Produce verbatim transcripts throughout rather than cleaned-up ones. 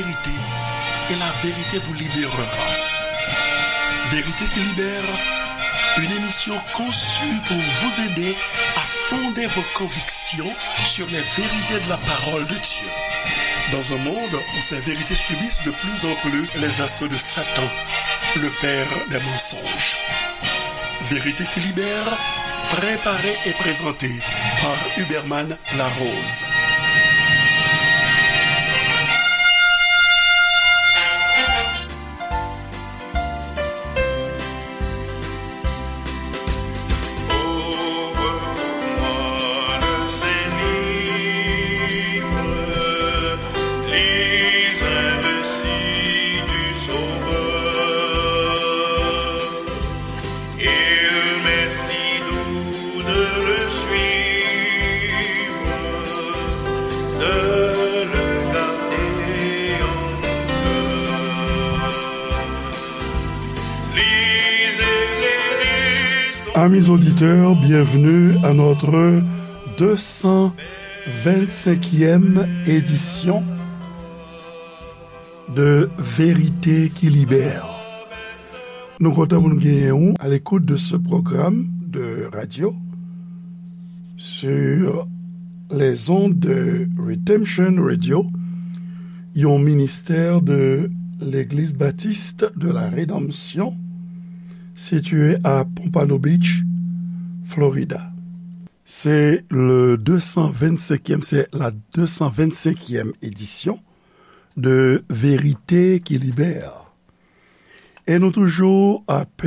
vérité, et la vérité vous libérera. Vérité qui libère, une émission conçue pour vous aider à fonder vos convictions sur les vérités de la parole de Dieu. Dans un monde où ces vérités subissent de plus en plus les assauts de Satan, le père des mensonges. Vérité qui libère, préparée et présentée par Huberman Larose. Ouvre pour moi le Saint-Livre, lis un récit du Sauveur. Il m'est si doux de le suivre, de le garder en mon cœur. Lisez, lisez son Amis auditeurs, bienvenue à notre deux cent vingt-cinquième édition de Vérité qui Libère. Nou kontan pou nou genyen ou à l'écoute de ce programme de radio sur les ondes de Redemption Radio, yon ministè de l'Église Baptiste de la Rédemption, situé à Pompano Beach, Florida. C'est le deux cent vingt-cinquième, c'est la deux cent vingt-cinquième édition de Vérité qui Libère. E nou toujou ap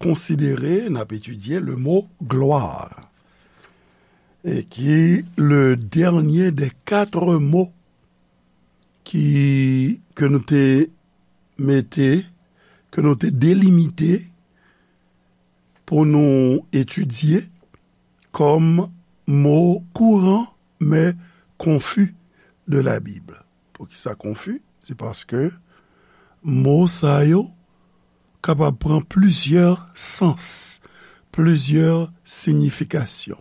konsidere, n ap etidye le mo gloire, e ki le dernier des quatre mots ki, ke nou te mete, ke nou te delimite pou nou etidye kòm mo kouran men konfi de la Bib. Poukisa konfi? Se paske mo sa yo kapab pran plizyè sans, plizyè siyifikasyon.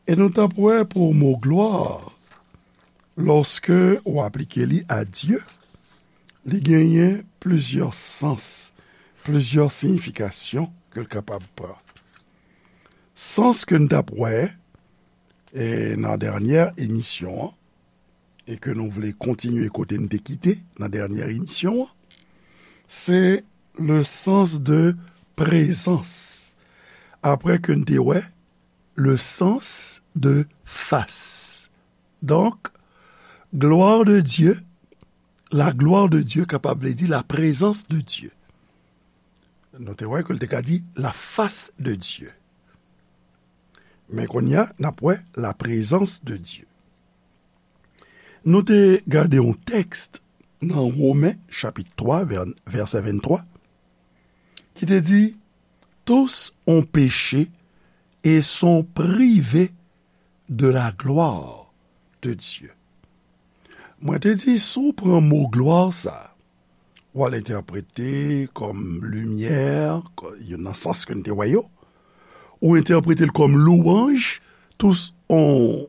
E nou t ap wè pou mo glwa, lòske w aplike li a Dye, li genyen plizyè sans, plizyè siyifikasyon ke l kapab pran. Sans ke n t ap wè, e, nan dènyè emisyon an, e ke nou vle kontinye kote n te kite nan dènyè emisyon an, se le sens de présence. Apre ke n te wè le sens de face. Donk, gloire de Dieu, la gloire de Dieu kapab vle di la présence de Dieu. Nou te wè ke l te ka di la face de Dieu. Men kounye a, n ap wè la présence de Dieu. Nou te gade yon tèks nan Women, chapit twa, vè-, vèsè venntwa, ki te di, tous ont péché et sont privés de la gloire de Dieu. Mwen te di, si w pran mo glwa sa, w al entèprete kòm limyè, kò-, yo nan sans ke n te wè yo, ou entèprete l kòm louwanj, tous ont,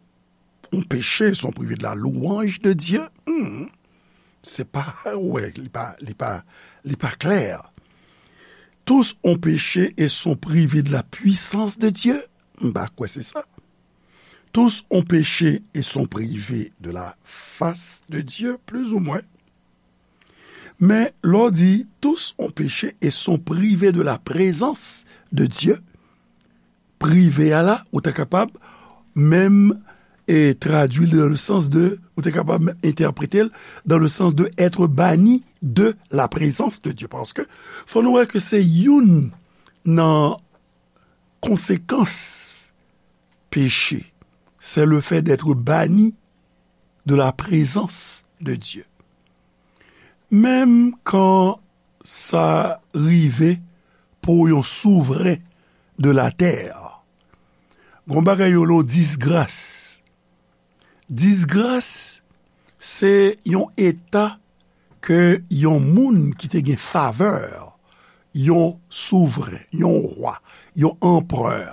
ont péché, sont privés de la louange de Dieu. Hmm. Se pa, wè, li pa, li pa, li pa klè. Tous ont péché et sont privés de la puissance de Dieu. M pa kwè se sa. Tous ont péché et sont privés de la face de Dieu, plus ou moins. Men, lè w di, tous ont péché et sont privés de la présence de Dieu, prive a la, ou ta kapab menm, e, tradui l dans le sens de, ou ta kapab menm entèprete l dans le sens de être banni de la présence de Dieu. Paske, fò nou wè ke se youn nan konsekans peche, c'est le fait d'être banni de la présence de Dieu. Menm kan sa rive pou yon souvren de latè, gon bagay yo rele disgras. Disgras, se yon eta ke yon moun ki te gen favè, yon souvren, yon wa, yon anperè.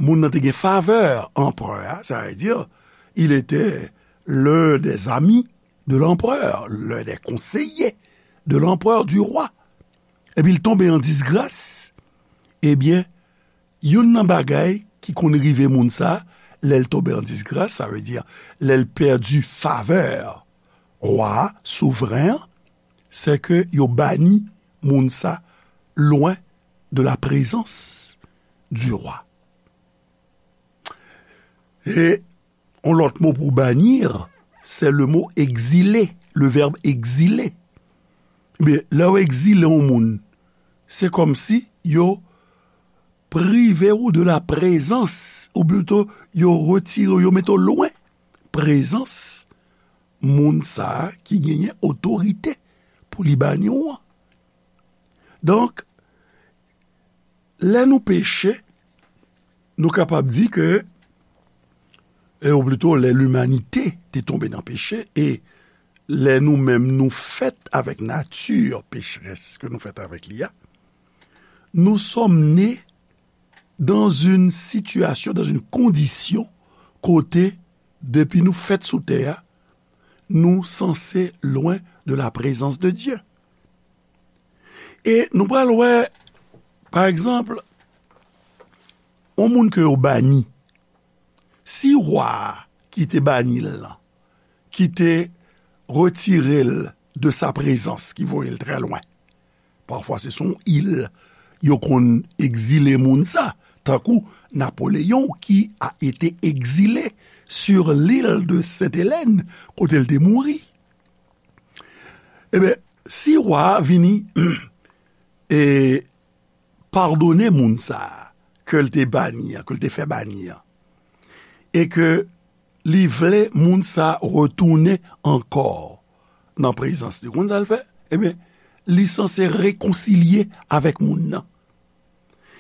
Moun nan te gen favè anperè a, sa vle di, il était l'un des amis de l'empereur, l'un des conseillers de l'empereur, du roi. Epi l tonbe an disgras, ebyen, youn nan bagay ki konn rive moun sa, lè l tonbe an disgras, sa vle di, lè l pèdi favè wa a, souvren an, se ke yo bani moun sa lwen de la prezans du roi. E yon lòt mo pou bannir, se le mo egzile, le vèb egzile. Ebyen, lè yo egzile yon moun, se kòmsi yo prive w de la prezans, ou plito yo retire w, yo mete w lwen prezans moun sa a ki genyen otorite pou li bani w an. Donk, lè nou peche, nou kapab di ke, e, ou plito lè limanite te tonbe nan peche, e lè nou menm nou fèt avèk nati pecherès ke nou fèt avèk li a, nous sommes nés dans une situation, dans une condition, kote, depi nou fèt sou tè a, nou sanse lwen de la prezans de Dye. E nou pral wè, pa egzanp, yon moun ke yo bani, si wa a ki te bani l lan, ki te retire l de sa prezans, ki voye l trè lwen, pafwa se sou yon il yo konn egzile moun sa, tankou Napoléon qui a été exilé sur l'île de Sainte-Hélène, kote l te mouri. Ebyen, si wa a vini e padone moun sa a ke l te bani an, ke l te fè bani an, e ke li vle moun sa a retounen ankò nan prezans li, ou konn sa l fè? Ebyen, li sanse rekonsilye avèk moun nan.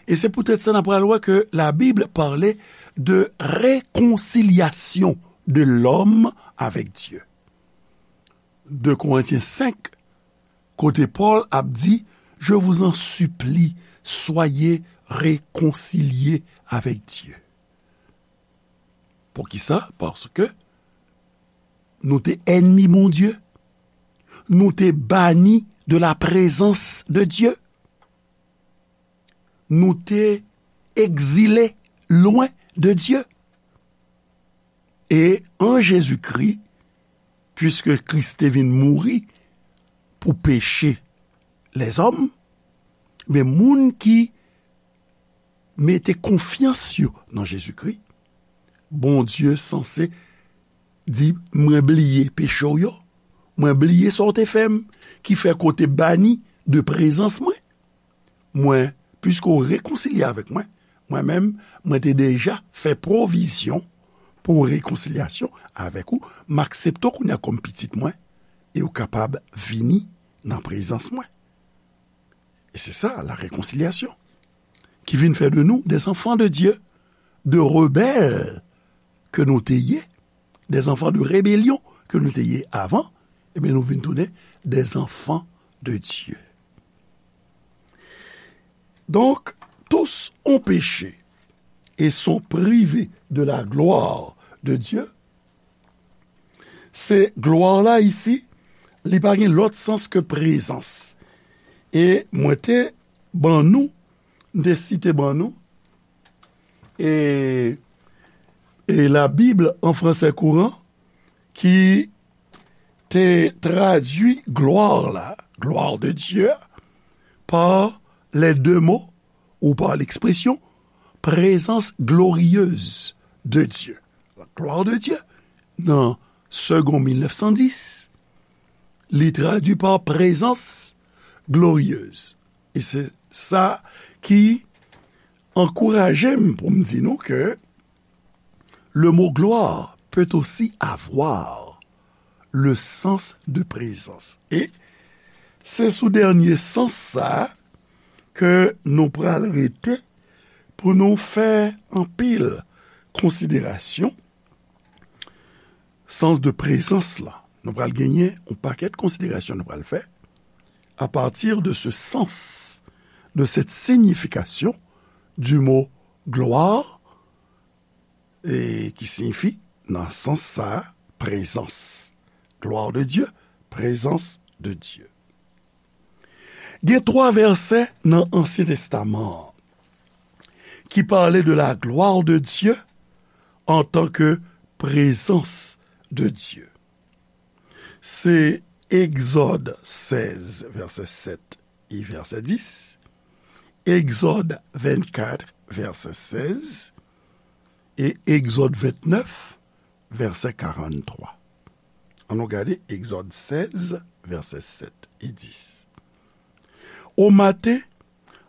E se poutèt sa n ap pral wè ke la Bible parle de réconciliation de l'homme avec Dieu. De Korentyen senk, kote Pòl ap di, je vous en supplie, soyez réconciliés avec Dieu. Poukisa? Paske nou te ènmi Bondye, nou te bani de la prezans de Dye, nou te egzile lwen de Dye. E an Jezikri, piske Kris te vin mouri pou peche lèzòm, men moun ki mete konfyans yo nan Jezikri, Bondye sanse di, mwen bliye peche w yo, mwen bliye sa w te fè m, ki fè ke w te bani de prezans mwen. Mwen, piske w rekonsilye avèk mwen, mwen menm, mwen te deja fè pwovizyon pou rekonsilyasyon avèk ou. M aksepte w kounye a kòm pitit mwen, e w kapab vini nan prezans mwen. E se sa, la réconciliation, ki vin fè de nou des enfants de Dieu, de rebelles ke nou te ye, des enfants de rébellion ke nou te ye avan, ebyen, nou vin tounen des enfants de Dieu. Donc, tous ont péché et sont privés de la gloire de Dieu. Se glwa la isi, li pa gen lòt sans ke prezans. E mwen te ban nou, m te site ban nou, e, e la Bible en français courant, ki te tradui glwa la, gloire de Dieu, par les deux mots ou par l'expression présence glorieuse de Dieu. La gloire de Dieu, nan Segond mil nèf san dis, li tradui par présence glorieuse. E se sa ki ankouraje m pou m di nou ke le mot gloire peut aussi avoir le sens de présence. E se sou dènye sans sa a ke nou pral rete pou nou fè anpil konsiderasyon. Sans de prezans la, nou pral genyen yon pakèt konsiderasyon nou pral fè à partir de ce sens, de cette signification du mot gloire, e ki siyifi, nan sans sa, prezans. Gloire de Dieu, présence de Dieu. Gen twa vèsè nan Ansyen Testaman an ki pale de la gloire de Dieu en tant que présence de Dieu. Se Egzòd sèz, vèsè sèt e vèsè dis, Egzòd vennkat, vèsè sèz, e Egzòd vennèf, vèsè karanntwa. Ann nou gade Egzòd sèz, vèsè sèt e dis. Au matin,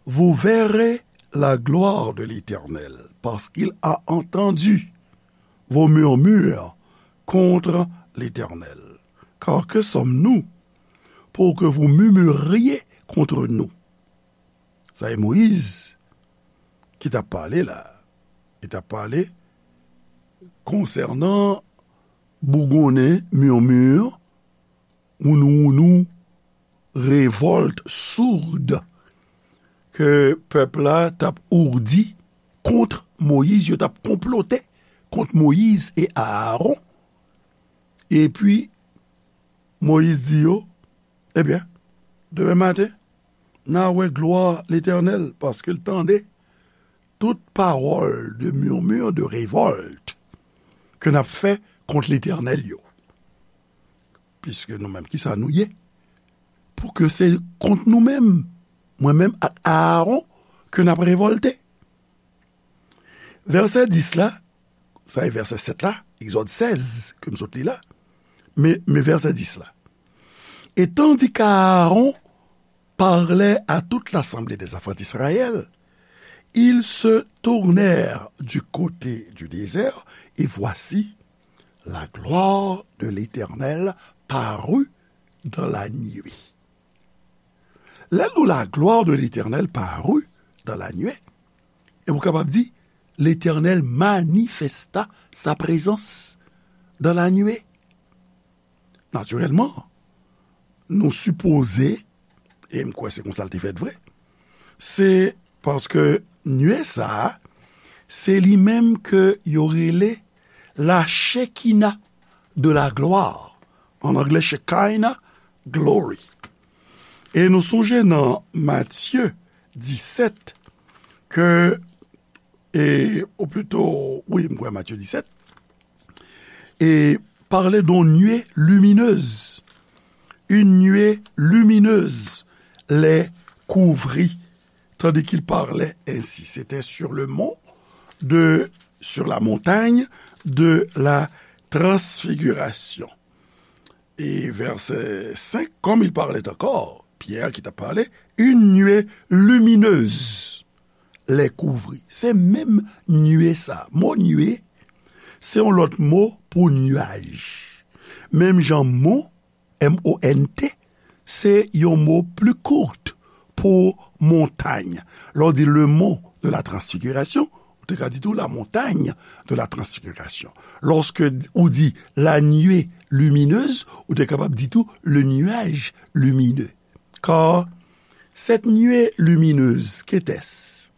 vous verrez la gloire de l'Éternel, parce qu'il a entendu vos murmures contre l'Éternel. Car que sommes-nous pour que vous murmuriez contre nous? Sa e Moyiz ki t ap pale la. Li t ap pale konsènan bougonnen, murmure, wounou wounou, revòlt soud ke pèp la t ap ourdi kont Moyiz, yo t ap konplote kont Moyiz e Aaron. Epi, Moyiz di yo, ebyen, demen maten, n a wè glwa Letènèl, paske l tande tout pawòl de murmure, de révolte ke n ap fè kont Letènèl yo. Piske nou menm, kisa nou ye? Pou ke se kont nou menm, mwen menm ak Aaron, ke n ap revòlte. Vèsè dis la, sa e vèsè sèt la, Egzòd sèz, ke m sot li la, men, men vèsè dis la. Et tandis qu'Aaron parlait à toute l'assemblée des enfants d'Israël, ils se tournèrent du côté du désert, et voici, la gloire de l'Éternel parut dans la nuée. Lè l di la gloire de l'Éternel parut dans la nuée, e ou kapab di, Letènèl manifesta sa prezans dans la nuée. Natirèlman, nou sipoze, e m kwè se konsa l te fèt vre, se paske nuée sa a, se li menm ke yo rele la Shekinah de la gloire. An anglè, Shekinah glory. E nou sonje nan Matye disèt ke, e, ou plito, wi, m kwè Matye disèt, e pale d'une nuée lumineuse. Une nuée lumineuse les couvrit, tandis qu'il parlait ainsi. C'était sur le mont de, sur la montagne de la transfiguration. E vèsè senk, comme il parlait encore, Pierre ki t ap pale, une nuée lumineuse les couvrit. Se menm nuée sa. Mo nuée, se yon lòt mo pou nuage. Menm jan mont, M O N T, se yon mo pli kout pou montay. Lè w di le mont de la transfiguration, ou te ka di tou la montagne de la transfiguration. Lòske ou di la nuée lumineuse, ou te kapab di tou le nuage lumineux. Car cette nuée lumineuse, qu'était-ce?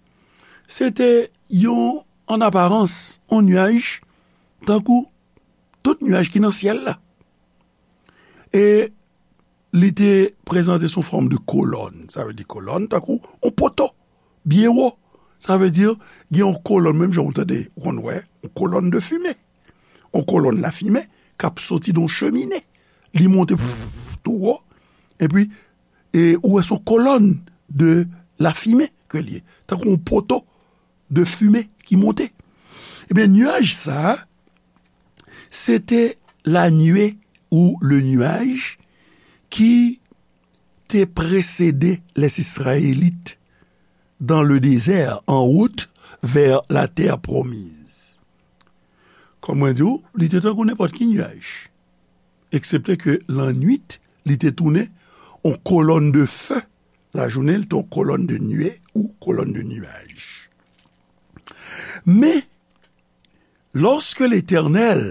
Se te yon, an aparans, yon nuage, tankou tout nuage ki nan syèl la. E li te prezante sou fòm de kolòn. Sa vle di kolòn, tankou yon poto, byen wo. Sa vle di, gen yon kolòn, menm jan ou tande, ou konn wè, yon kolòn de fimen. Yon kolòn lafimen k ap soti nan yon chemine. Li monte tou wo, epi, e ou wè se yon kolòn de lafimen ke l ye. Tankou yon poto de fimen ki monte. Ebyen, nuage sa a, se te la nuée ou le nuage ki te presede les Israélites dans le désert, en route vers la terre promise. Kòm mwen di w, li te tankou nenpòt ki nuage, eksepte ke lannwit, li te tounen yon kolòn de feu. Lajounen, li te yon kolòn de nuée ou kolòn de nuage. Men, lòske Letènèl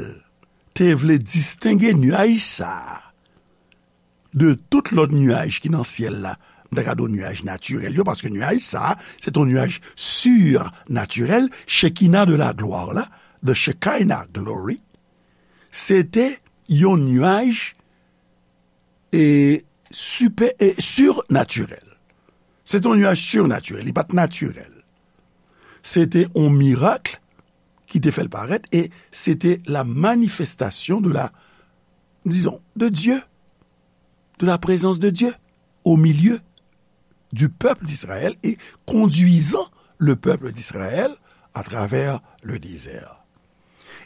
te vle distenge nuage sa a de tout lòt nuage ki nan syèl la, m ta ka di w nuage natirèl yo, paske nuage sa a, se te yon nuage surnatirèl, Shekinah de la gloire la, the Shekinah glory, se te yon nuage e, sipè, e, sirnatirèl. Se te yon nyaj sirnatirèl, li pa t natirèl. Se te yon mirak ki te fè l parèt, e se te la manifestation de la, disons, de Dieu, de la présence de Dieu au milieu du peuple d'Israël et conduisant le peuple d'Israël à travers le désert.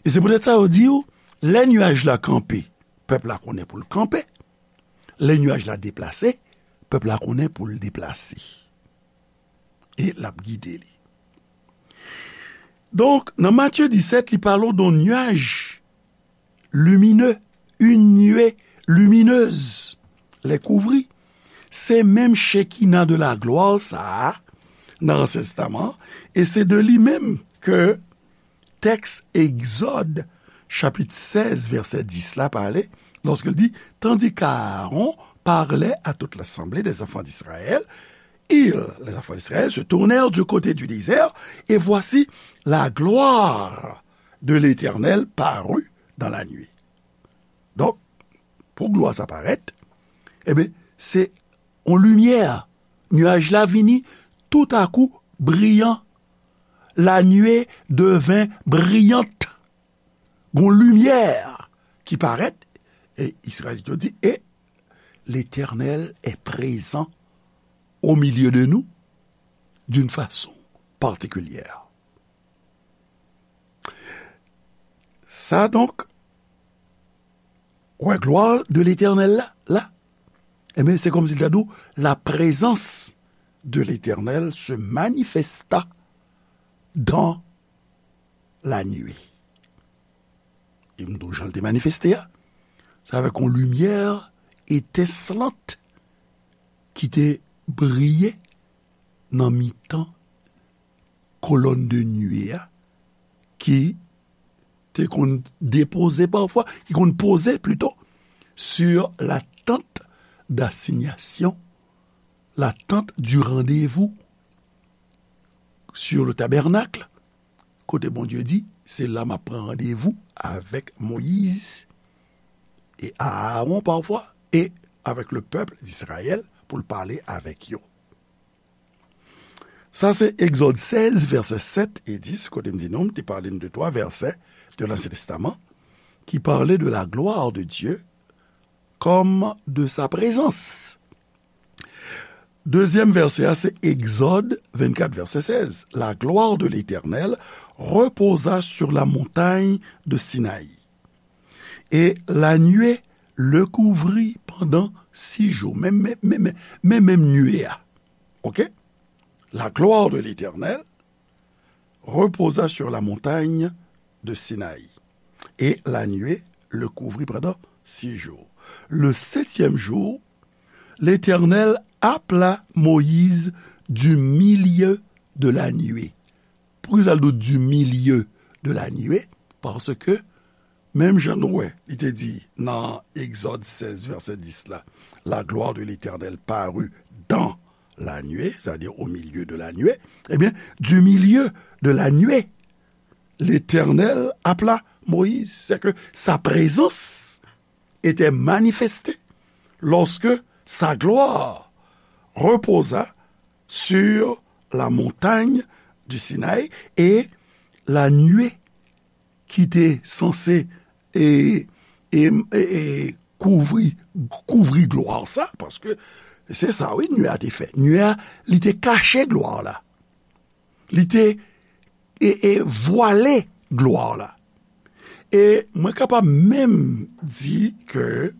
E se poutèt sa yo di w, lè nyaj la kanpe, pèp la konnen pou l kanpe. Lè nyaj la deplase, pèp la konnen pou l deplase. E l ap gide li. Donk, nan Matye disèt, li pale w de yon nyaj lumineux, une nuée lumineuse les couvrit. Se menm Shekinah de la gloire sa a nan Ansyen Testaman, e se de li menm ke tèks Egzòd, chapit sèz, vèsè dis la pale, lorsqu'il dit, tandis qu'Aaron parlait à toute l'assemblée des enfants d'Israël, ils, les enfants d'Israël, se tournèrent du côté du désert, et voici, la gloire de l'Éternel parut dans la nuit. Donk, pou glwa sa parèt, ebyen, se yon limyè. Nyaj la vini toutakou briyan. La nuée devint brillante. Gon limyè ki parèt, e Izrayelit yo di, et l'Éternel est présent au milieu de nous d'une façon particulière. Sa donk, wè glwa de Letènèl la, la, ebyen, se kòmsi l ta di w, la présence de l'Éternel se manifesta dans la nuée. E m di w jan l te manifeste a, se avèk yon limyè etenslant ki te briye nan mitan kolòn de nuée a, ki te konn depoze pafwa, ki konn poze plito, sur la tente d'assignation, la tente du rendez-vous, sur le tabernacle, kote Bondye di, se la m ap pran randevou avèk Moyiz e Aaron pafwa, e avèk le peuple d'Israël pou l pale avèk yo. Sa se Egzòd sèz, vèsè sèt e dis, kote m di nou, m te pale n de twa vèsè de Lansyen Testaman ki pale de la gloire de Dieu comme de sa présence. Dezyèm vèsè a, se Egzòd vennkat, vèsè sèz. La gloire de l'Éternel reposa sur la montagne de Sinaï. Et la nuée le couvrit pendant six jours. Men, men, men, men, men menm nuée a. OK? La gloire de l'Éternel reposa sur la montagne de Sinaï. Et la nuée le couvrit pendant six jours. Le septième jour, l'Éternel appela Moïse du milieu de la nuée. Poukisa l di w du milieu de la nuée? Paske, menm jan nou wè, li te di nan Egzòd sèz, vèsè dis la, la gloire de l'Éternel parut dans la nuée, c'est-à-dire au milieu de la nuée. Ebyen, du milieu de la nuée, l'Éternel appela Moïse. C'est que sa présence était manifestée lorsque sa gloire reposa sur la montagne du Sinaï, et la nuée ki te sanse e, e, e, e kouvri, kouvri glwa sa, paske se sa, wi, nuée a te fè. Nuée a, li te kache glwa la. Li te, e, e vwale glwa la. E mwen kapab menm di ke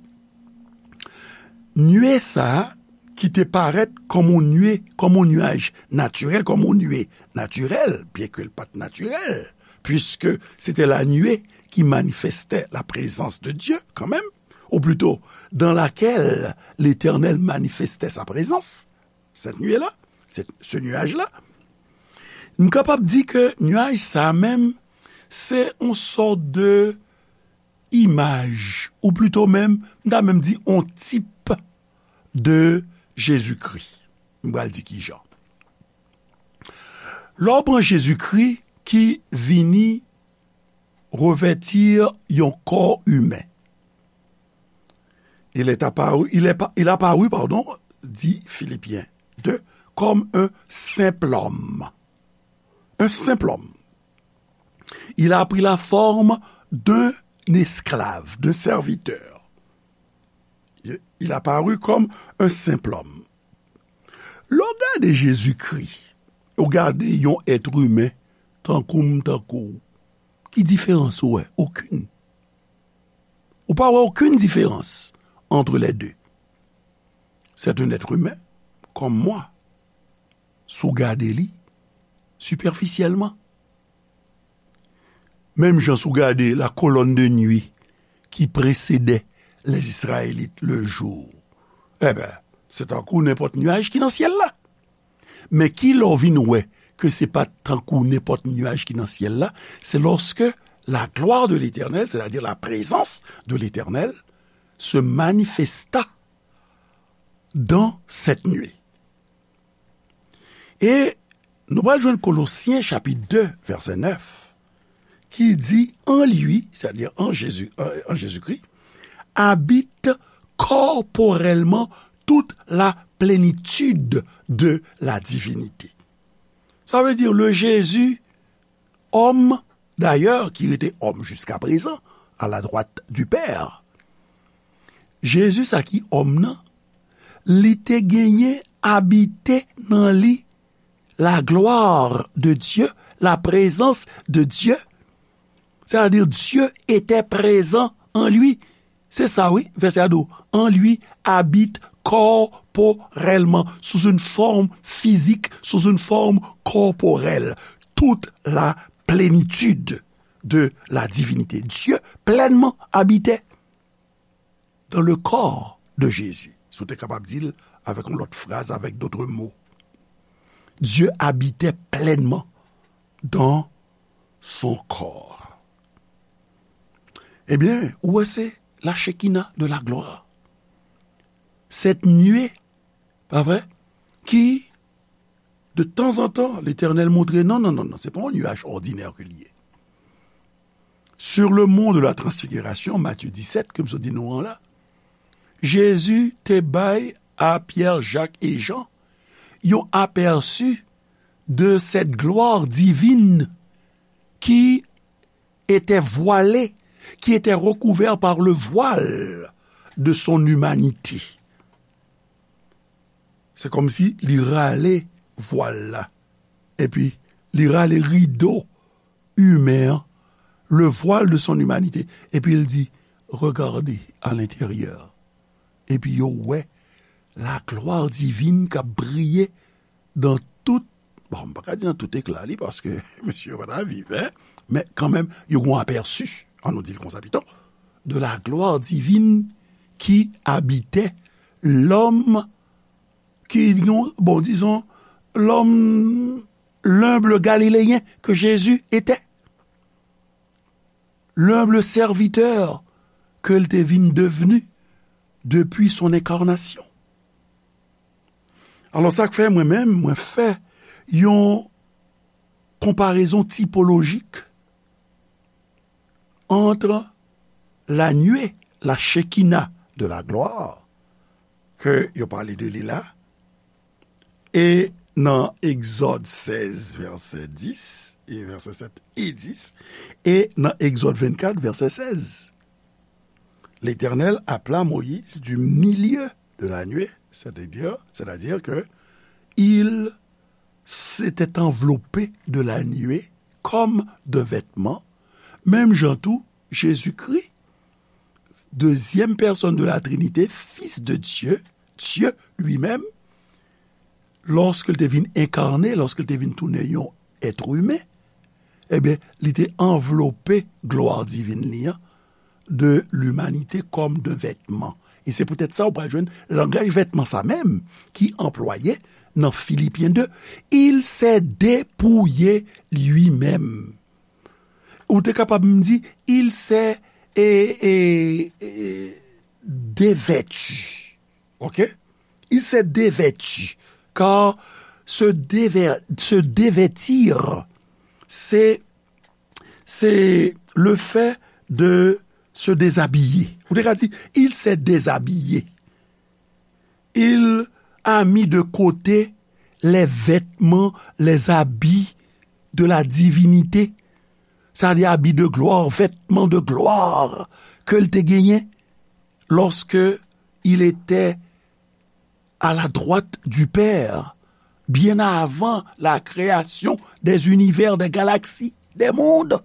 nuée sa a, ki te parèt kòm yon nuée, kòm yon nyaj natirèl, kòm yon nuée natirèl, byenke l pa t natirèl, puisque c'était la nuée qui manifestait la présence de Dieu quand même, ou plutôt dans laquelle l'Éternel manifestait sa présence, cette nuée-là, cette, ce nuage-là. M kapab di ke nyaj sa a menm, se yon sòt de imaj, ou plito menm, m ta menm di yon tip de Jezikri. M pral di kijan. Lè w pran Jezikri ki vini revèti yon kò imen, Il est apparu, il est pa-, il apparut, pardon, dit Philippiens deux, comme un simple homme. Un simple homme. Il a pris la forme d'un esclave, d'un serviteur. Il, il apparut comme un simple homme. Lè w gade Jezikri, ou gade yon èt imen tankou m, tankou w, ki diferans ou wè? Okenn. Ou pa wè okenn diferans entre les deux. C'est un être humain, comme moi. Si w gade li, sipèfisyèlman. Menm jan si w gade la colonne de nuit qui précédait les Israélites le jour, enben, se tankou nenpòt nyaj ki nan syèl la. Men ki lè w vin wè ke se pa t tankou nenpòt nyaj ki nan syèl la, se lorsque la gloire de l'Éternel, c'est-à-dire la présence de l'Éternel, se manifesta dans cette nuée. E nou pral jwenn Kolosyen chapit de, vèsè nèf, ki di, en lui, c'est-à-dire en Jésus, en, en Jésus-Christ, habite corporellement toute la plénitude de la divinité. Ça veut dire le Jésus, homme, d'ailleurs, qui était homme jusqu'à présent, à la droite du Père. Jezi sa ki òm nan, li te genyen abite nan li la gloire de Dieu, la présence de Dieu. C'est-à-dire, Dieu était présent en lui. Se sa, wi, vèsè a di w, en lui habite corporellement, sous une forme physique, sous une forme corporelle, toute la plénitude de la divinité. Dieu pleinement habitait dans le corps de Jésus. Si w te kapab di l avèk yon lòt fraz, avec d'autres mots. Dieu habitait pleinement dans son corps. Ebyen, ou wè, se la Shekinah de la gloire. Cette nuée, pa vre, ki, de tanzantan, Letènèl montre, non, non, non, non, se pa yon nyaj òdinè ke li ye. Sur le mont de la transfiguration, Matthieu dix-sept, ke m sot di nou an la, Jezi te bay a Pyè, Jak e Jan yon apèsi de cette gloire divine qui était voilée, qui était recouverte par le voile de son humanité. Se kòmsi li rale vwal la, epi li rale rido imen an, le voile de son humanité, epi l di, regardez à l'intérieur. Epi yo wè la gloire divine k ap briye dans tout, bon, m pa ka di nan tout ekla li, paske mesye yo pa ta viv, en, men kanmenm, yo gon apèsi, an nou di l konsa pito, de la gloire divine qui habitait l'homme, ki, bon, disons, l'homme, l'humble Galiléen que Jésus était. L'humble serviteur ke l te vin devni depi son enkarnasyon. Alò, sa k fè mwen menm, mwen fè yon konparezon tipolojik ant la nuée, la Shekinah de la gloire, ke yo pale de li la, e nan Egzòd sèz, vèsè dis, e vèsè sèt e dis, e nan Egzòd vennkat, vèsè sèz. L'Éternel appela Moïse du milieu de la nuée, c'est-à-dire, c'est-à-dire que il s'était enveloppé de la nuée comme d'un vêtement, menm jan tou, Jezikri, dezyèm pèsòn de la Trinité, Fils de Dieu, Dieu lui-même, lòske l te vin enkane, lòske l te vin tounen yon èt imen, ebyen, li te anvlope glwa divin li an de limanite kòm de vètman. E se poutèt sa ou pral jwenn langaj vètman sa menm ki anplwaye nan Filipyen de, il s'est dépouillé lui-même. Ou te kapab m di, il s'est, e, e, e, dévêtu. Ok? Il s'est dévêtu. Car se dévè-, se dévêtir, c'est, c'est le fait de se déshabiller. Ou te ka di, il s'est déshabillé. Il a mis de côté les vêtements, les habits de la divinité. Sa di abi de glwa, vètman de glwa ke l te genyen lorsque il était à la droite du Père, bien avant la création des univers, des galaxies, des mondes.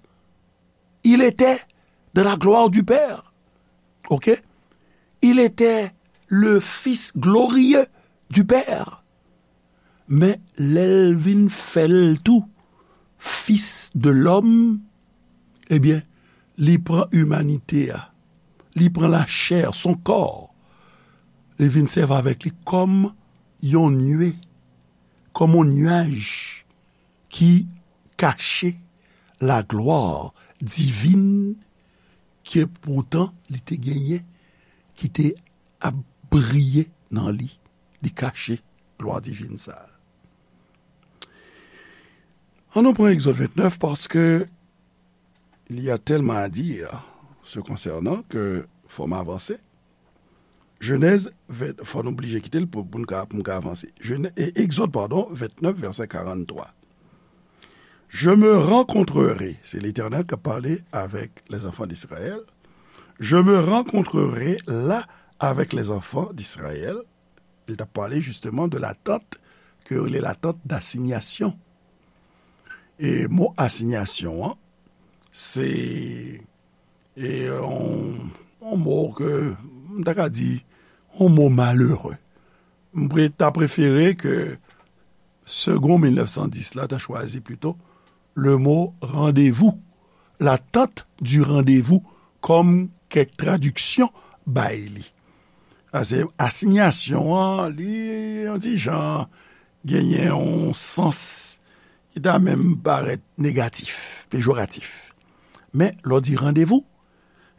Il était dans la gloire du Père. OK? Il était le Fils glorieux du Père. Men lè l vin fè l tou fis de lòm, ebyen, li pran imanite a, li pran lachè, son kò, li vin sèvi avèk li kòm yon nwe, kòm yon nyaj ki kache la gloire divine ke poutan li te genyen, ki te ap briye nan li. Li kache glwa divin sa a. Ann nou pran Egzòd vennèf, paske il y a tellement à dire ce concernant que fò m avanse. Jenèz ven, fò n oblije kite l pou, pou n ka, pou n ka avanse. Jenè, e, Egzòd, padon, vennèf, vèsè karanntrwa. Je me rencontrerai, se Letènèl k ap pale avèk les enfants d'Israël. Je me rencontrerai là avec les enfants d'Israël. Li t ap pale justement de la tente ke yo rele la tente d'assignation. E mo asinyasyon an, se e yon, yon mo ke m ta ka di yon mo malere. M pre, ta prefere ke Segond mil nèf san dis la ta chwazi plito le mo randevou, l'attente du rendez-vous, kòm kèk tradiksyon bay li. Paske asinyasyon an, li yon ti jan genyen yon sans ki ta menm parèt negatif, pejoratif. Men, lè w di randevou,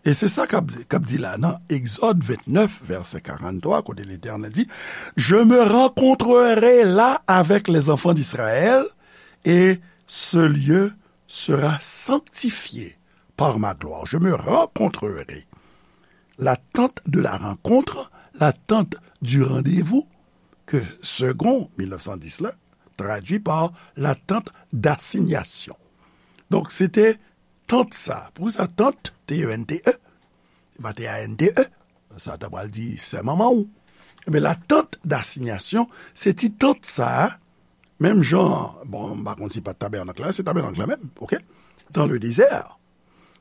e se sa k ap, k ap di la nan Egzòd vennèf, vèsè karanntrwa, kote Letènèl di, je me rencontrerai là avec les enfants d'Israël, et ce lieu sera sanctifié par ma gloire. Je me rencontrerai. La tente de la rencontre, la tente du rendez-vous, ke Segond mil nèf san dis la tradui pa la tente d'assignation. Donk, se te tant sa. Poukisa tant, T E N T E? Se pa T A N T E. Sa ta pral di sè manman w. Ebyen, la tente d'assignation, se ti tant sa a, menm jan, bon, m pa konn si pa tabènak la, se tabènak la menm, OK? Dans le désert,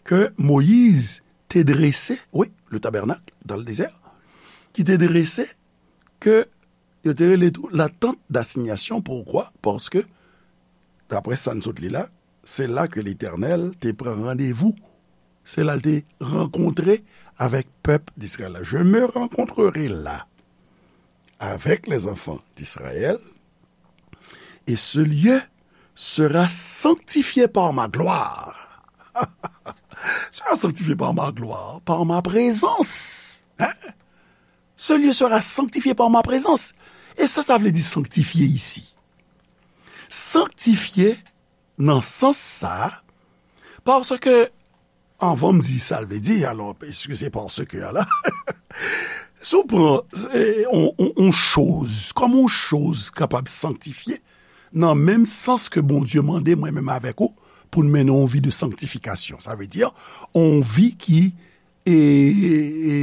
ke Moyiz te drese, wi, le tabernacle dans le désert, ki te drese, ke yo te rele tou la tente d'assignation. Poukwa? Paske, daprè sa n sot li la, se la ke Letènèl te pran randevou. Se la l te rankontre avèk pèp d'Israël la. Je me rencontrerai là avec les enfants d'Israël, et ce lieu sera sanctifié par ma gloire. Sera sanctifié par ma gloire, par ma présence. Hein? Ce lieu sera sanctifié par ma présence. E sa, sa vle di sanktifye isi? Sanktifye nan sans sa, paske, anvan m di sa l vle di, alò, èske se paske a la? Si w pran, e, on, on, on choz, kòman on choz kapab sanktifye, nan menm sans ke Bondye mande mwen menm avèk ou, pou n mennen on vi de sanktifikasyon. Sa vle di, on vi ki, e, e,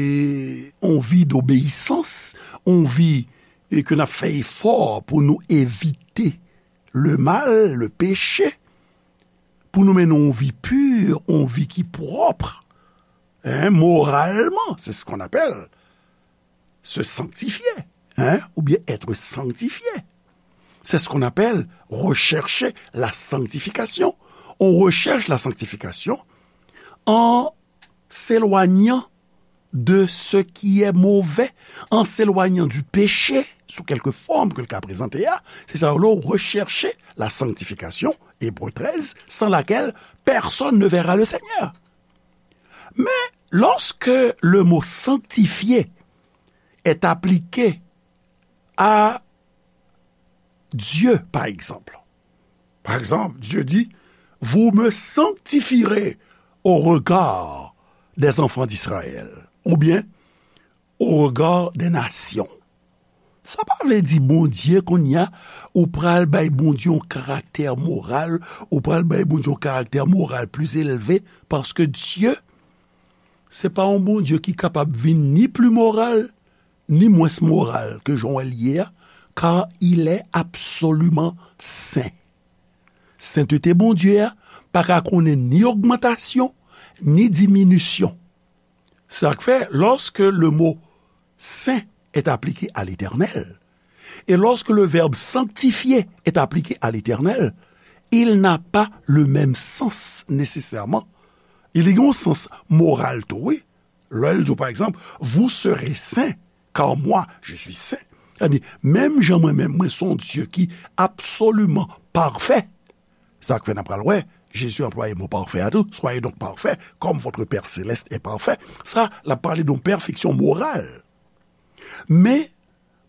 on vi dobeyisans, on vi, e, ke n ap fè efò pou nou evite le mal, le péché, pou nou mennen on vi pi, on vi ki pwòp, hein, moralman, c'est ce qu'on appelle se sanctifier, hein, ou bien être sanctifié. C'est ce qu'on appelle rechercher la sanctification. On recherche la sanctification en s'éloignant de ce qui est mauvais, en s'éloignant du péché, sous quelque forme que l ka prezante a, se sa yo rele rechercher la sanctification, Hébreux treize, sans laquelle personne ne verra le Seigneur. Mais lorsque le mot sanctifier est appliqué à Dieu, par exemple. Par exemple, Dieu dit, vous me sanctifierez au regard des enfants d'Israël, oubyen au regard des nations. Sa pa vle di Bondye kounye a, ou pral bay Bondye yon karaktè moral, ou pral bay Bondye yon karaktè moral plis elve, paske Dye, se pa yon Bondye ki kapab vin ni pli moral, ni mwens moral ke jan w wè l ye a, car il est absolument saint. Sentete Bondye a pa ka konnen ni ogmantasyon, ni diminisyon. Sa k fè, lorsque le mot saint est appliqué à l'Éternel, et lorsque le verbe sanctifier est appliqué à l'Éternel, il n'a pas le même sens nécessairement. Il y a un sens moral tou, wi. Lè l di w, pa egzanp, vous serez saints, car moi, je suis saint. Sa di, menm jan mwen menm, mwen se yon Dye ki absoliman pafè. Sa k fè n ap pral wè, Jezi anplwaye mo pafè a tou. Soyez donc parfaits, comme votre Père céleste est parfait. Sa, l ap pale de yon pèfeksyon moral. Men,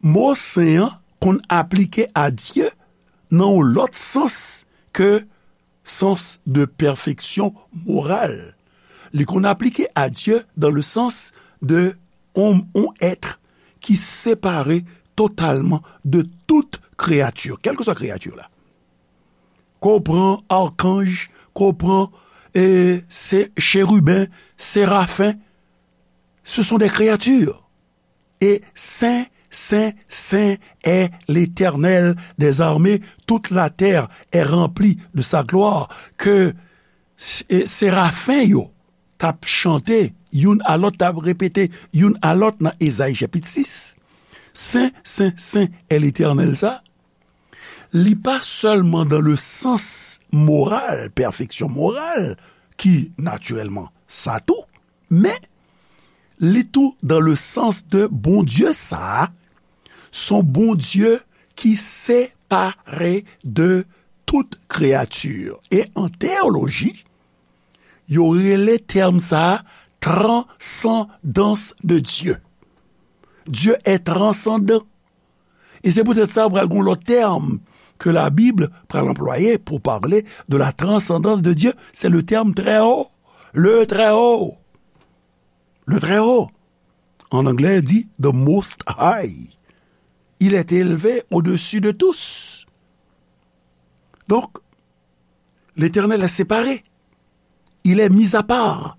mo sen an konn aplike a Dye nan yon lòt sans ke sans de perfection morale. Li konn aplike a Dye dans le sens de on, on être ki separe totalman de tout kreyati, kèlkeswa kreyati la. Ke w pran akanj, ke w pran e, se, cheriben, serafen, ce sont des créatures. Et saint, saint, saint est l'Éternel des armées, toute la terre est remplie de sa gloire. Ke e, serafen yo t ap chante youn a lòt, t ap repete youn a lòt nan Ezayi chapit sis. Sen, sen, sen est l'Éternel sa. Li pa sèlman dans le sens moral, pèfeksyon moral, ki natirèlman sa tou, men li tou dans le sens de Bondye sa a, se yon Bondye ki separe de tout kreyati. E an teyoloji, yo rele tèm sa a transcendance de Dieu. Dieu est transcendant. E se poutèt sa, pral gen yon lòt tèm ke Labib pral anplwaye pou pale de la transcendance de Dieu, c'est le terme très haut. Le très haut. Le très haut. En anglais, dit the most high. Il est élevé au-dessus de tous. Donc, L'Éternel est séparé. Il est mis à part.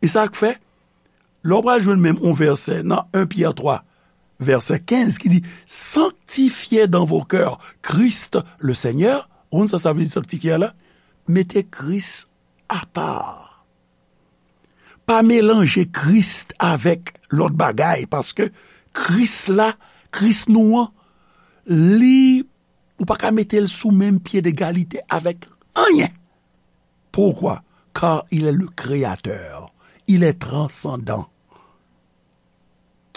E sa k fè, lè w pral jwenn menm yon vèsè nan en Pyè twa, vèsè kenz, ki di, sanctifiez dans vos cœurs Christ le Seigneur. Ou konn sa sa vle di sanktifye a la? Mete Kris apa. Pa melanje Kris avèk lòt bagay, paske Kris la, Kris nou an, li, ou pa ka mete l sou menm pye degalite avèk anyen. Pourquoi? Car il est le créateur, il est transcendant.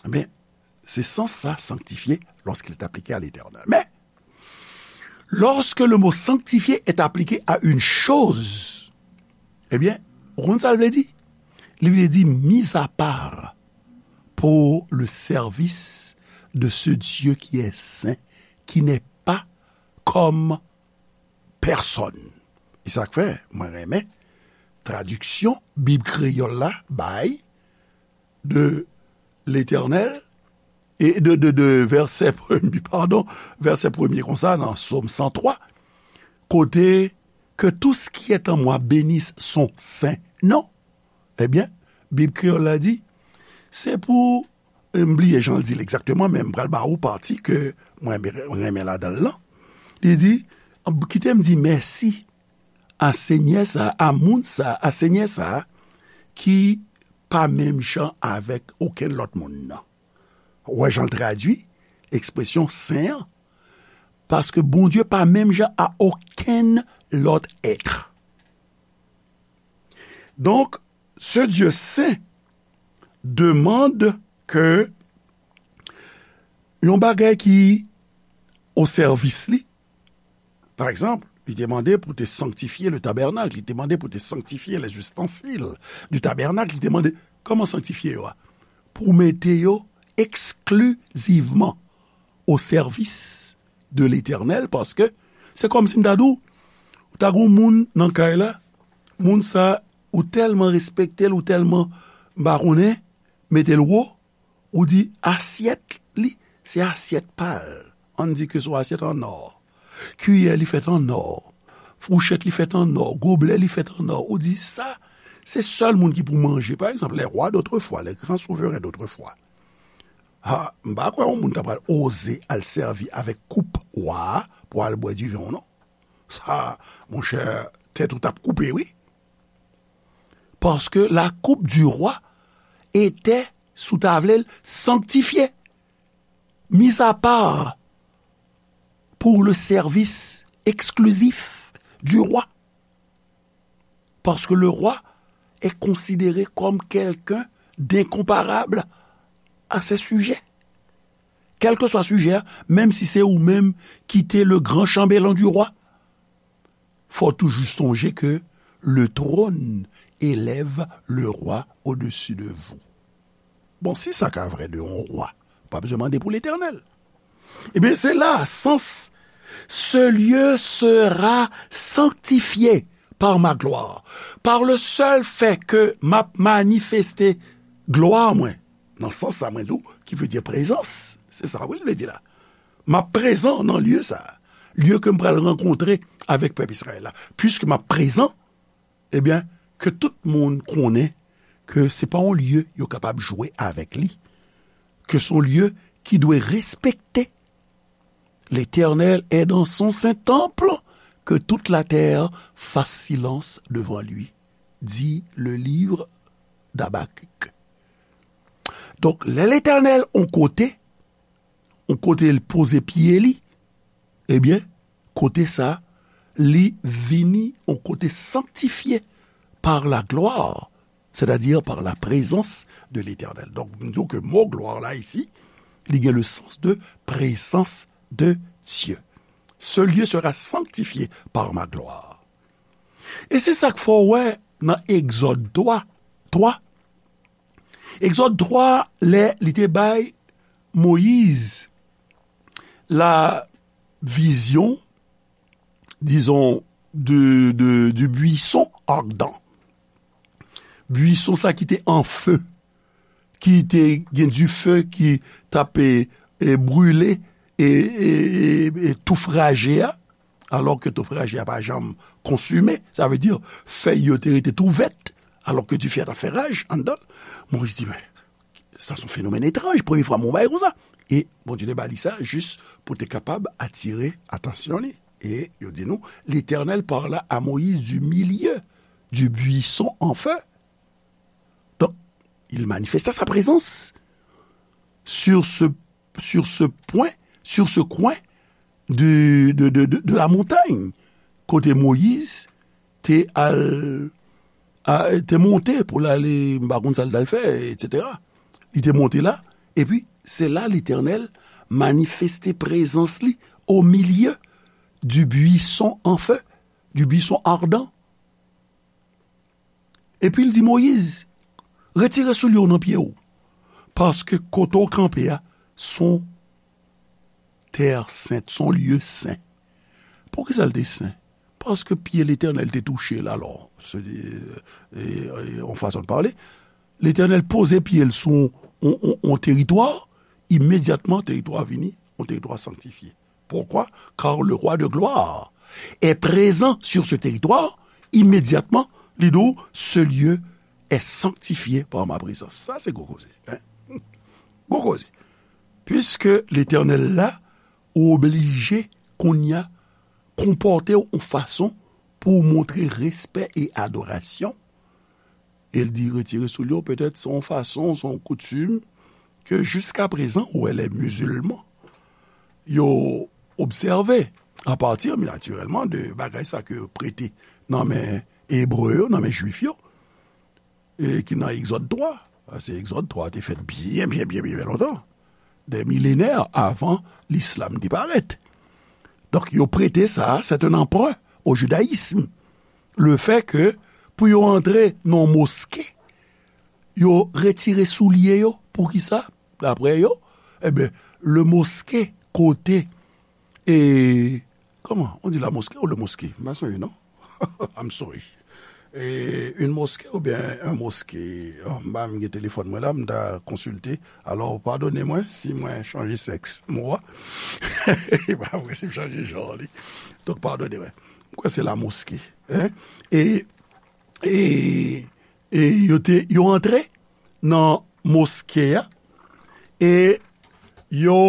Ebyen, se sans sa, sanctifié lorsqu'il est appliqué à l'Éternel. Mais, lorsque le mot sanctifié est appliqué à une chose, ebyen, ou konn sa l vle di? Li vle di mis à part pour le service de ce Dieu qui est saint, qui n'est pas comme personne. E sa k fè, mwen renmen tradiksyon Bib kreyòl la bay de Letènèl, e de, de, de vèsè premye, padon, vèsè premye konsa nan Sòm san twa, kote, que tout ce qui est en moi bénisse son saint nom. Ebyen, Bib kreyòl la di, se pou, e, m bliye jan l di l egzakteman, men m pral ba ou pati ke mwen renmen ladan l lan. Li di, kite m di mèsi a Senyè sa, a moun sa, a Senyè sa, ki pa menm jan avèk okenn lòt moun nan. Ou wè jan l tradui ekspresyon sen an? Paske Bondye pa menm jan a okenn lòt èt. Donk, ce Dieu saint demande que yon bagay ki o sèvis li, pa egzanp, li te mande pou te sanktifye le tabènak, li te mande pou te sanktifye les ustensiles du tabernacle, li te mande, kòman sanktifye yo a? Pou mete yo eksklizivman o sèvis de Letènèl, paske se kòmsi m ta di w, ou ta gen yon moun nan kay la, moun sa, ou tèlman respekte l, ou tèlman, m pa konnen, mete l wo, ou di asyèt li, se asyèt pa l. Ann di ke se yon asyèt an nò. Kiyè li fèt an nò. Fouchèt li fèt an nò. Goblè li fèt an nò. Ou di sa, se sèl moun ki pou manje. Pa egzanp, les rois d'autrefois, les grands souverains d'autrefois. Ha, m pa kwè yon moun ta pral oze al sèvi avèk koup wa a pou al bwè diven, non. Sa, monchè, tèt ou t ap koupe, wi. Parce que la coupe du roi était, si w ta vle l, sanctifiée, mise à part pour le service exclusif du roi. Parce que le roi est considéré comme quelqu'un d'incomparable à ses sujets. Quel que soit sujet, menm si se ou menm ki te le grand chambellan du roi, fò toujou sonje ke le trône élève le roi au-dessus de vous. Bon, si sa ka vrè de yon wa, pa bezwen mande pou Letènèl. Ebyen, se la sans, ce lieu sera sanctifié par ma gloire. Par le seul fait ke m ap manifeste glwa mwen, nan sans sa mwen di w, ki vle di prezans, se sa wi l vle di la. M ap prezan nan lye sa, lye ke m pral rankontre avèk pèp Izrayèl la. Piske m ap prezan, ebyen, ke tout moun konnen ke se pa yon lye yo kapab jwe avèk li, ke se yon lye ki dwe respekte. L'Éternel est dans son saint temple, que toute la terre fasse silence devant lui, dit le livre d'Habacuc. Donk, lè Letènèl on kote, on kote l poze pye li, ebyen, kote sa, li vini on kote sanktifye par la gloire, c'est-à-dire par la présence de l'Éternel. Donk, m di w ke mo glwa la isi, li gen le sens de présence de Dieu. Ce lieu sera sanctifié par ma gloire. E se sa k fè w wè nan Egzòd twa, twa, Egzòd twa, lè li te bay Moyiz la vizyon, dizon, de, de, du buisson ardent. Buisson sa ki te an fe, ki te gen dife ki t ap, e, e, brile, e, e, e, e touf raje a, alò ke touf raje a pa janm konsime, sa vle di fèy yo te rete tou vèt, alò ke dife a t ap fè raj anndan l. Moyiz di, men, sa se yon fenomèn etranj, premye fwa m wè yon bagay konsa. E Bondye te ba li sa jis pou te kapab atire atansyon li. E yo di nou, Letènèl parla a Moyiz du milieu du buisson en feu. Donk, il manifesta sa prezans sur ce, sur ce point, sur ce coin de, de, de, de, de la montagne, kote Moyiz te al, a, te monte pou l ale, m pa konn sa l t al fè, etsetera. Li te monte la, epi se la Letènèl manifeste prezans li au milieu du buisson en feu, du buisson ardent. Epi l di Moyiz, retire soulye w nan pye w, paske kote w kanpe a, se yon tè sent, se yon lye sen. Poukisa l te sen? Paske pye Letènèl te touche l, alò, se, e, e, e, yon fason de pale. Letènèl poze pye l sou yon, yon, yon, yon teritwa, imedyatman, teritwa a vini yon teritwa sanktifye. Pourquoi? Car le roi de gloire est présent sur ce territoire. Immédiatement, li di w, ce lieu est sanctifié par ma présence. Sa se gwo koze, hein? Gwo koze. Puisque Letènèl la, ou oblije kounye a konpòte w yon fason pou w montre respè e adorasyon. E l di retire soulye w, petèt se yon fason, se yon koutim ke jiskaprezan, ou wè, lè mizilman yo obsève, apati, natirèlman, de bagay sa ke yo prete nan men Ebre yo, nan men Jwif yo, e ki nan Egzòd twa. Paske Egzòd twa te fèt byen, byen, byen, byen, byen lontan, des millénaires avant l'islam te parèt. Donk, yo prete sa, c'est un emprunt au judaïsme. Le fait que, pou yo antre nan moske, yo retire soulye yo. Poukisa? Daprè yo, eben, le moske kote, e, kòman? On dit la mosquée ou le moske? M pa sonje, non? I'm sorry. E, une mosquée oubyen un mosqué? Oh, m pa menm gen telefòn mwen la, m ta konsilte. Alò, padone mwen si mwen chanje sèks mo a. E pa vre si m chanje jan li. Donk, padone mwen. M kwè se la mosquée. Hein? E, e, e yo te, yo antre nan moske a. E yo,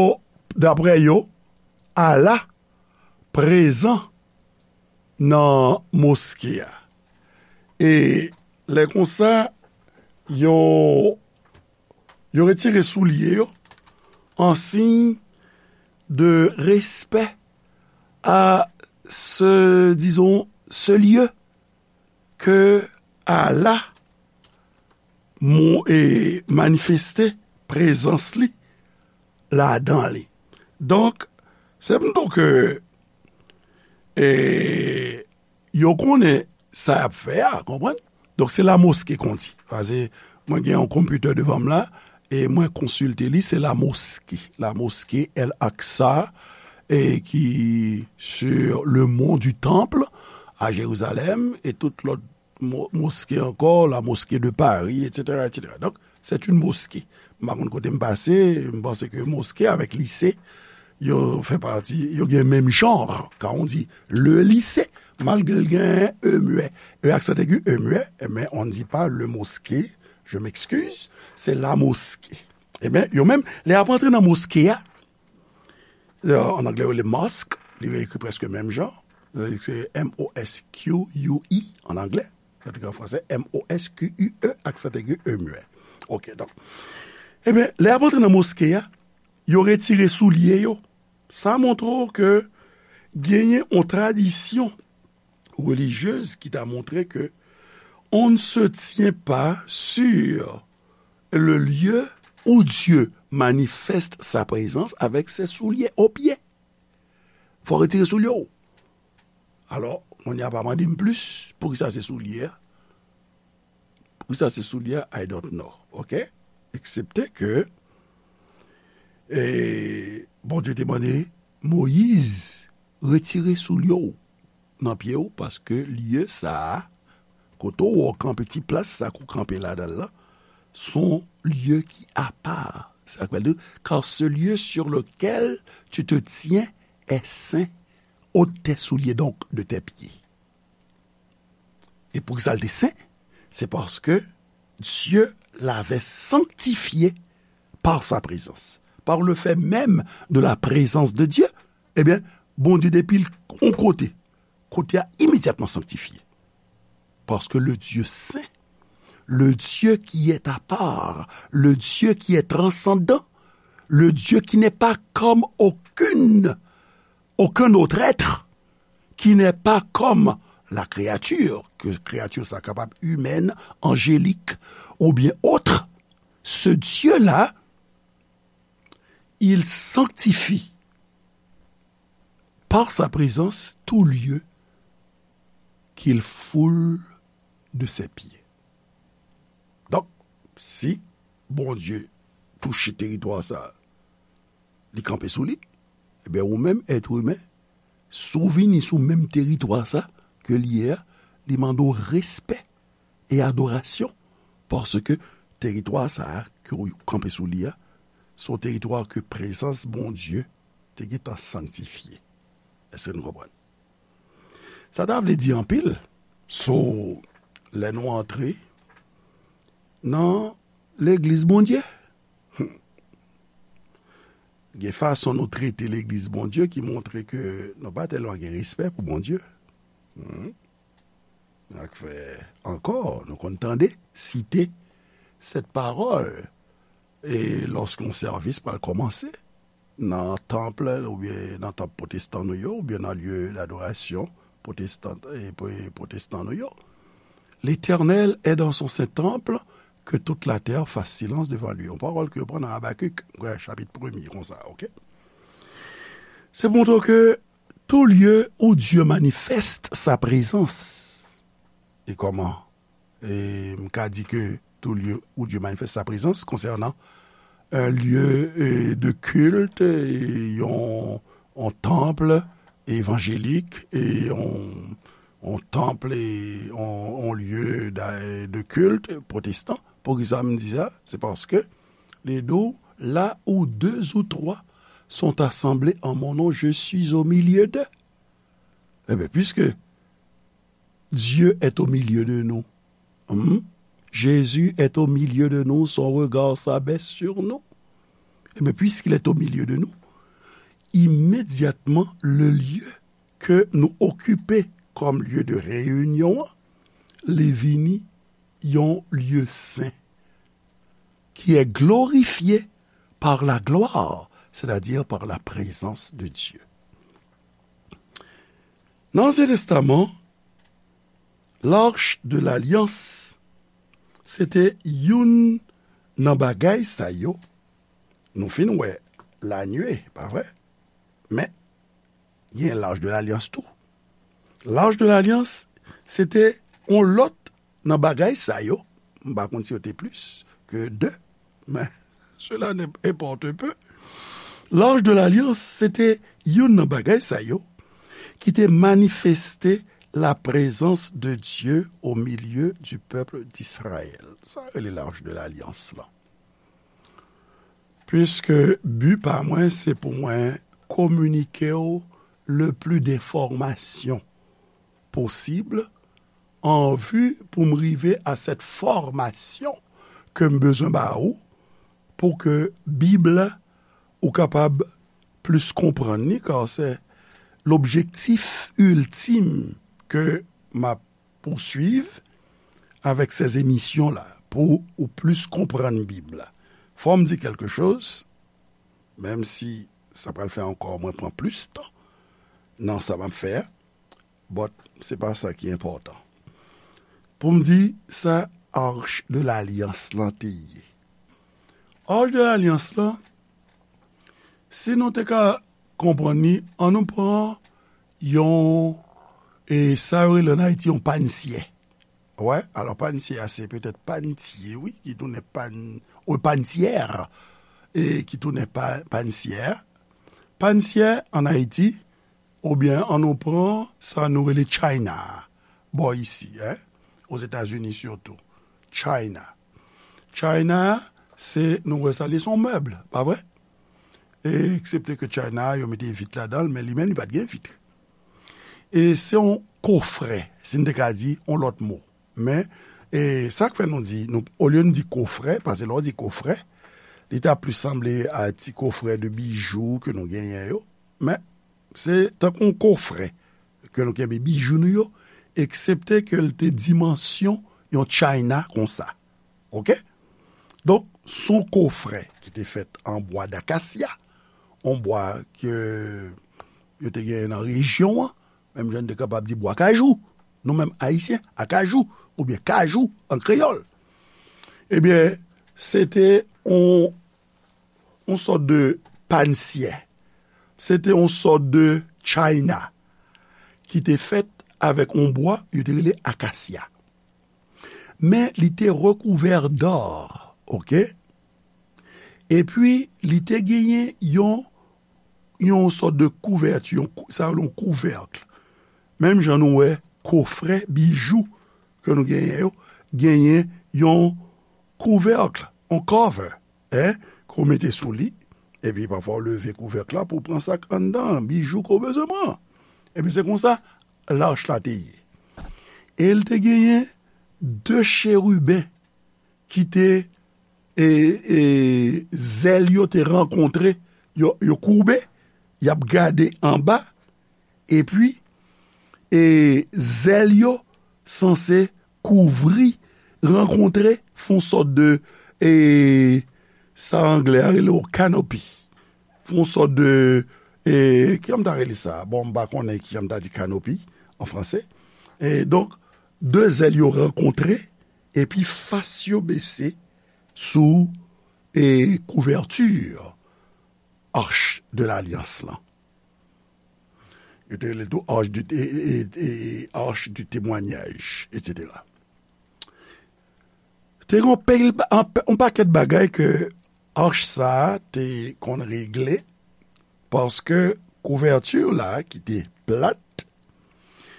daprè yo, Allah prezan nan moske a. E lè konsa, yo, yo retire soulye yo an siy de respè a ce, disons, ce lieu que Allah mo-, e, manifeste prezans li ladan li. Donk, se m di w ke, e, yo konnen sa y ap fè a, konprann? Donk, se la mosquée qu'on dit. Paske mwen gen yon konpitè devan m la, e mwen konsilte li, se la mosquée. La mosquée El Aqsa, e ki sur le mont du Temple, à Jérusalem, e tout lòt mo-, moske ankò, la mosquée de Paris, et cetera, et cetera. Donk, c'est une mosquée. M pa konn kote m pase, m panse ke moske avèk lise, yo fè pati, yo gen menm jan, kan on di le lycée, malgre l gen e muet, e aksan egi, e muet, men on ne dit pas le mosquée, je m'excuse, c'est la mosquée. Ebyen, yo menm, lè y ap antre nan moske a, euh, an anglè, yo rele mosque, li ekri prèske menm jan. Se M O S Q U E an anglè. Sa te an fransè, M O S Q U E, aksan egi, e muet. Ok, donk. Ebyen, lè y ap antre nan moske a, yo retire soulye yo. Sa montre w ke genyen yon tradisyon relijyez ki ta montre ke on ne se tient pas sur le lieu où Dieu manifeste sa présence avec ses souliers aux pieds. Fò retire soulye w. Alò, kounye a pa mande m plis, poukisa se soulye a? Poukisa se soulye a? I don't know, ok? Eksepte ke, e, Bondye te mande Moyiz, retire soulye w nan pye w, paske lye sa a, kote w kanpe, ti plas sa k ou kanpe ladan l lan, son lye ki apa. Sa vle di, car ce lieu sur lequel tu te tiens est saint, ôte tes souliers donc de tes pieds. E poukisa l te sen? Se paske Dieu l'avait sanctifié par sa présence. Par le fait même de la présence de Dieu, ebyen, Bondye depi l yon kote, kote a imedyatman sanktifye. Parce que le Dieu saint, le Dieu qui est à part, le Dieu qui est transcendant, le Dieu qui n'est pas comme aucune, aucun autre être, qui n'est pas comme la créature, ke kreyati sa kapab imèn, anjelik, oubyen ot, ce Dieu-là, il sanctifie par sa présence tout lieu qu'il foule de ses pieds. Donk, si Bondye touche teritwa sa, li kanpe sou li, ebyen, ou menm, èt imen, si w vini sou menm teritwa sa ke li ye a, li mande w respè e adorasyon, paske teritwa sa a ke w kanpe sou li a, se yon teritwa ke prezans Bondye te gentan sanktifye. Èske nou konprann? Sa ta vle di anpil sou lè nou antre nan legliz Bondye. Hmm. Gen fason nou trete legliz Bondye ki montre ke nou pa tèlman gen respè pou Bondye. Hmm. Sa k fè ankò, nou konn tande, site sèt pawòl, e lòske yon sèvis pral kòmanse nan tanp, oubyen nan tanp pwotestan nou yo, oubyen nan lye ladorasyon pwotestan, e, pwo-, pwotestan nou yo. L'Éternel est dans son saint temple, que toute la terre fasse silence devant lui. Yon pawòl ke yo pran nan Abakik, wè, chapit premye, konsa, ok? Se pou montre w ke tout lieu où Dieu manifeste sa présence. E kòman? E m ka di ke tout lieu où Dieu manifeste sa présence konsènan un lieu, e, de culte, e yon, yon tanp evanjelik, e yon, yon tanp, e, yon, yon lye de, de kilt pwotestan. Poukisa m di sa? Se paske li di w, là où deux ou trois sont assemblés en mon nom, je suis au milieu d'eux. Ebyen, puiske Dieu est au milieu de nous, hmm, Jésus est au milieu de nous, son regard s'abaisse sur nous. Ebyen, puisqu'il est au milieu de nous, immédiatement, le lieu ke nou okipe kòm lye de reyinyon an, li vini yon lye sen, qui est glorifié par la gloire, c'est-à-dire par la présence de Dieu. Nan Ansyen Testaman, l'Arche de l'Alliance, se te youn nan bagay sa yo. Nou fin wè lanwe, pa vre? Men, gen l'Arche de l'Alliance tou. L'Arche de l'Alliance, se te yon lòt nan bagay sa yo. M pa konn si yo te plis ke de, men cela n'importe peu. L'Arche de l'Alliance, se te youn nan bagay sa yo ki te manifeste la présence de Dieu au milieu du peuple d'Israël. Sa rele l'Arche de l'Alliance lan. Puiske bi pa mwen, se pou mwen kominike w le plus d'informations possible, an vi pou m rive a cette formation ke m bezwen ba ou, pou ke Bib la, ou kapab plis konprann li, kar se lobjektif iltim ke m ap pouswiv avèk se emisyon la, pou ou plis konprann Bib la. Fò m di kèlke choz, menm si sa pral fè ankò mwen pran plis tan nan sa m ap fè a, but se pa sa ki enpòtan. Pou m di sa Arche de l'Alliance lan te ye. Arche de l'Alliance lan, si nou te ka konprann li, an nou pran yon, e sa yo rele ann Ayiti yon pannsyè. Wè, alò pannsyè a se petèt panntyè, wi, ki tounen pann, wi, panntyè, e ki tounen pa, pannsyè. Pannsyè ann Ayiti, oubyen an nou pran sa nou rele China, bò isi, en, Ozetazini sitou. China. China, se, nou wè sa, li se yon mèb, pa vre? E, eksepte ke China, yo mete vit ladan l, men li menm, li pa t gen vit. E se yon kofrè, si n te ka di yon lòt mo. Men, e sa k fè nou di, nou, olye n di kofrè, paske lè w di kofrè, li ta plis sanble a ti kofrè de bijou ke nou genyen yo. Men, se tankou yon kofrè ke nou kenbe bijou nou yo, eksepte ke l te dimansyon yon china konsa. Oke? Donk, se yon kofrè ki te fèt an bwa dakasya, yon bwa ke yo te genyen nan rejyon an, menm jan n te kapab di bwa kajou, nou menm Ayisyen, akajou, oubyen kajou an kreyòl. Ebyen, se te yon, yon sòt de pannsyè. Se te yon sòt de china ki te fèt avèk yon bwa yo te rele akasya. Men li te rekouvè d'or, oke? Epi, li te genyen yon, yon sòt de kouvèti, yon kou-, sa yo rele yon kouvèk. Menm jan nou wè kofrè bijou ke nou genyen yo, genyen yon kouvèk, yon cover, en, ke w mete sou li, epi pafwa w leve kouvèk la pou w pran sa k anndan, bijou ke w bezwen pran. Epi se konsa, lach la te ye. E l te genyen de cheriben ki te, e, e, zèl yo te rankontre, yo, yo koube, y ap gade anba, epi, e, zèl yo sanse kouvri, rankontre, fè yon sòt de, e, sa anglè a rele yon canopy. Fè yon sòt de, e, kijan m ta rele sa? Bon, m pa konnen kijan m ta di canopy an franse. E donk, de zèl yo rankontre, epi fas yo bese sou, e, kouvèti Arche de l'Alliance lan. Yo te rele l tou Arche du, e, e, e, Arche du Témoignage, etsetera. Te gen yon pil, yon, yon pakèt bagay ke ach sa a te konn regle, paske kouvèti la ki te plat,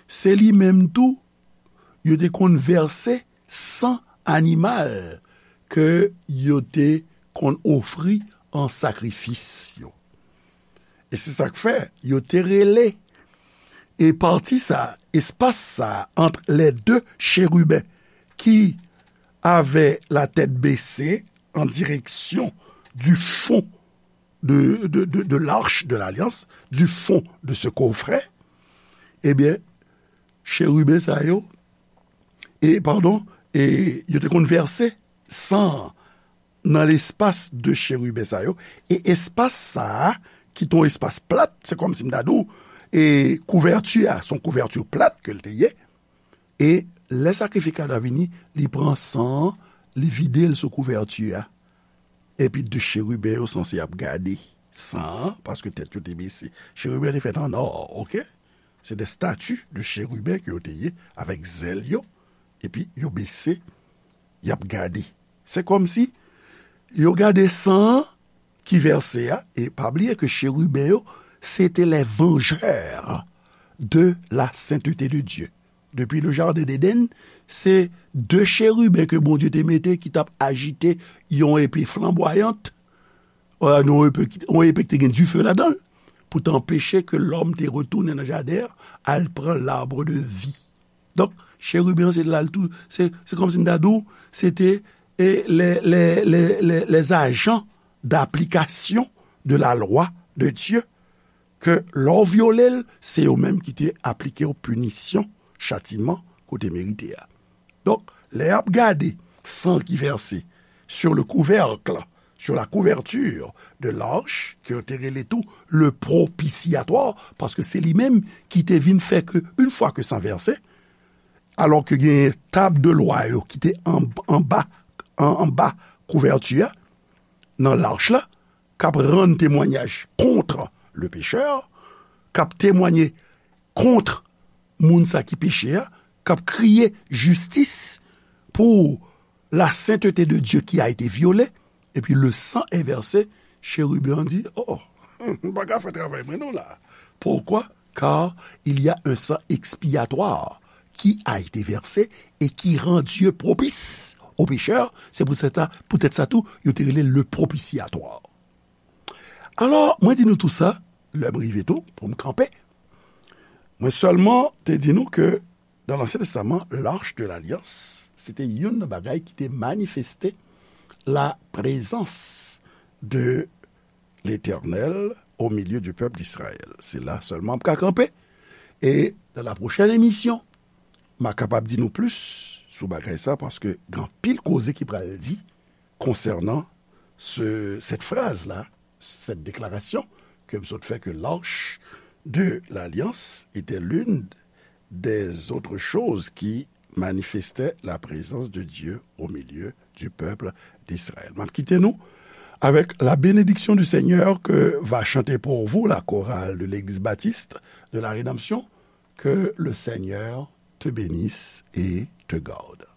Se li menm tou, yo te konn vèse san animal ke yo te konn ofri an sakrifis yo. E se sa k fè yo te rele e pati sa, espas sa ant les deux chérubins qui avaient la tête baissée en direction du fond de, de, de, de l'arche de l'alliance, du fond de ce coffret, ebyen, cheriben sa yo, e, padon, e, yo te konn vèse san nan lespas de cheriben sa yo, e espas sa a, ki te yon espas plat, se kòmsi m ta di w, e kouvèti a, se yon kouvèti plat ke l te ye, e lè sakrifikatè a vini, li pran san an, li vide l sou kouvèti a. Epi de cheriben yo sanse ap gade san an, paske tèt yo te bese. Cheriben te fèt an nò, oke? Se de stati de cheriben ke yo te ye, avèk zèl yo, epi yo bese, y ap gade. Se kòmsi yo gade san an ki vèse a, e pa bliye ke cheriben yo, se te les vengeurs de la sainteté de Dieu. Depi le jardin d'Éden, se de cheriben ke Bondye te mete ki t ap ajite yon epe flanbwayant, euh, yon epe, yon epe ki te gen dife ladan l, pou t anpeche ke lòm te retounen nan jaden an, al pran l'arbre de vie. Donk, cheriben an se la l tou, se, se kòmsi m ta di w, se te, e, les, les, les, les, les agents d'application de la loi de Dieu, ke lè w vyole l, se yo menm ki te aplike w pinisyon, chatiman, ke w te merite a. Donk, lè y ap gade san ki vèse sur le couvercle, sur la couverture de l'arche, ke yo te rele tou le propitiatoire, paske se li menm ki te vin fè ke, yon fwa ke san vèse, alò ke gen tab de lwa yo ki te an, anba, an, anba kouvèti a, nan lach la, k ap rann temwanyaj kont le pécheur, k ap temwaye kont moun sa ki peche a, k ap kriye jistis pour la sainteté de Dieu qui a été violée, epi le sang est versé, chérubin an di, oh, m pa ka fè travay mwen non la. Pourquoi? Car il y a un sang expiatoire qui a été versé et qui rend Dieu propice aux pécheurs. Se pou sèt sa, poutèt sa tou, yo te rele le propitiatoire. Alò, mwen di nou tou sa, lè m rive tou, pou m kanpe. Mwen sèlman te di nou ke dans l'Ancien Testament, l'arche de l'alliance, se te youn nan bagay ki te manifeste la présence de l'Éternel au milieu du peuple d'Israël. Se la sèlman m ka kanpe. E dans la prochaine émission, m a kapab di nou plis sou bagay sa, paske gen anpil koze ki pral di konsènan se, cette phrase-là, cette déclaration ke m sot fè, que l'arche de l'alliance était l'une des autres choses qui manifestait la présence de Dieu au milieu du peuple d'Israël. M ap kite nou avec la bénédiction du Seigneur que va chanter pour vous la chorale de l'Église baptiste de la Rédemption. Que le Seigneur te bénisse et te garde.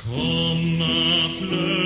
Kòm flè